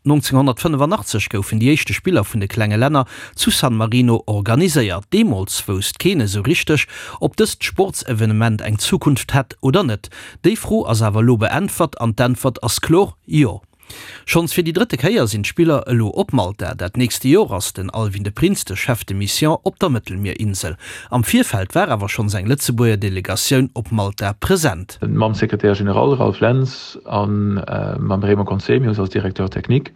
1985 goufen déi éischte Spiller vun de klenge Länner zu San Marino organiséiert. Deemools wousst keen esou richteg, ob dëst Sportsevenement eng Zukunft hätt oder net. Déi Fro ass awer elo beäntwert an d'Äntwert ass kloer, Jo. Schonns fir déi drëtte Kéier sinn d'Spiller elo op Malta. Dat nächste Jor ass den Alwin de Prins de Chef de Mission op der Mëttelmierinsel. Am Virfeld war awer schonns eng Lëtzebuerger Delegatioun op Malta present. Mam Secrétaire général Ralph Lentz a mam Raymond Conzemius als Directeur technique.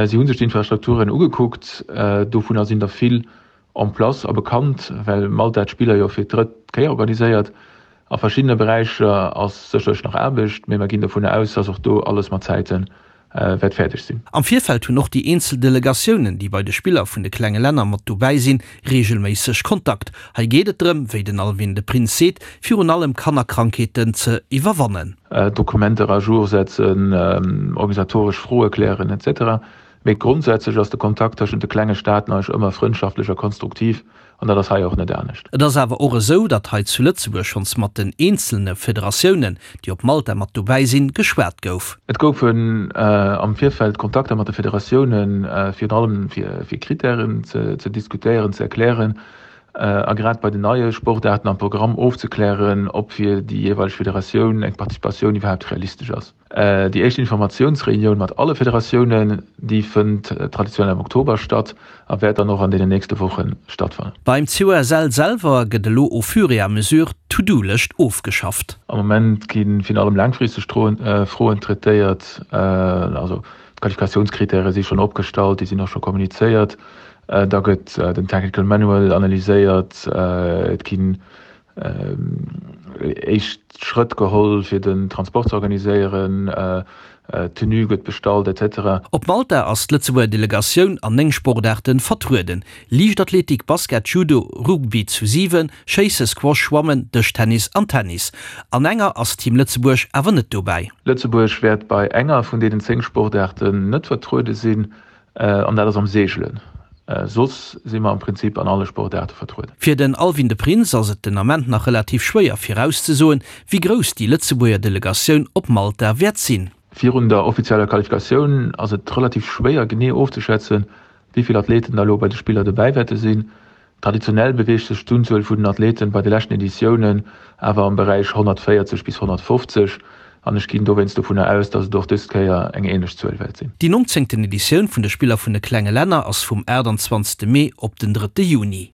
Si hu sech d'Infrastrukturen ugekuckt. Dovunner sinn der vill en place a bekannt, well Malta d'Spiller jo fir d'drëtt Kéier organiséiert. A verschiddene Beräicher ass sécherlech nach Aarbecht, mee mer ginn dovunner aus, dass och do alles mat Zäite wäert fäerdeg sinn. Am Virfeld hunn och déi eenzel Delegatiounen, déi bei de Spiller vun de klenge Länner mat dobäi sinn, reegelméisseg Kontakt. Hei geet et drëm, wéi den Alwin de Prins seet, virun allem Kannerkrankheeten ze iwwerwannen. Dokumenter à jour setzen, organisatoresch Froe klären, etc. Mee grondsätzlech ass de Kontakt tëschent de klenge Staaten eigentlech ëmmer frëndschaftlech a konstruktiv, an dat ass hei och net anescht. Et ass awer och esou, datt hei zu Lëtzebuerg schonns mat den eenzelne Federatiounen, déi op Malta mat dobäi sinn, geschwat gouf. Et goufen am Virfeld Kontakter mat de Federatiounen, virun allem fir Krittären ze diskutéieren, ze erklären a grad bei den neie Sportaarten am Programm ofzeklären, ob fir déi jeeweileg Federatioun eng Participatioun iwwerhaapt realistesch ass. Déi éischt Informatiounsreunioun mat alle Federatiounen, déi fënnt traditionell am Oktober statt a wäert dann och an deenen nächste Woche stattfannen. Beim COSL selwer gëtt elo au fur et à mesure d'To-Do-Lëscht ofgeschafft. Am Moment gi virun allem laangfristeg Froen traitéiert. Also d'Qualifikatiounskrittäre si schonn opgestallt, déi sinn och scho kommunizéiert. Da gëtt den Technical Manual analyséiert. Et ginn éischt Schrëtt geholl fir den Transport ze organiséieren, d'Tenue gëtt bestallt, etc. Op Malta ass d'Lëtzebuerger Delegatioun an 9 Sportaarten vertrueden, Liichtathletik, Basket, Judo, Rugby zu 7, Schéisse, Squash, Schwammen, Dëschtennis an Tennis. An enger ass Team Lëtzebuerg awer net dobäi. Lëtzebuerg wäert bei enger vun deenen 10 Sportaarten net vertruede sinn. An dat ass am Seegelen. Soss si mer am Prinzip an alle Sportaarte vertrueden. Fir den Alwin de Prins ass et den Ament nach relativ schwéier virauszesoen, wéi grouss déi Lëtzebuerger Delegatioun op Malta wäert sinn. Virun der offizieller Qualifikatioun ass et relativ schwéier genee ofzeschätzen, wéi vill Athleten da elo bei de Spiller dobäi wäerte sinn. Traditionell beweegt sech d'Unzuel vun den Athleten bei de leschten Editiounen awer am Beräich 140 bis 150 an ech ginn dowéinst dovunner aus, datt et och dës Kéier eng änlech Zuel wäert sinn. Déi nonzéngten Editioun vun de Spiller vun de klenge Länner ass vum 28 Mee op den drëtte Juni.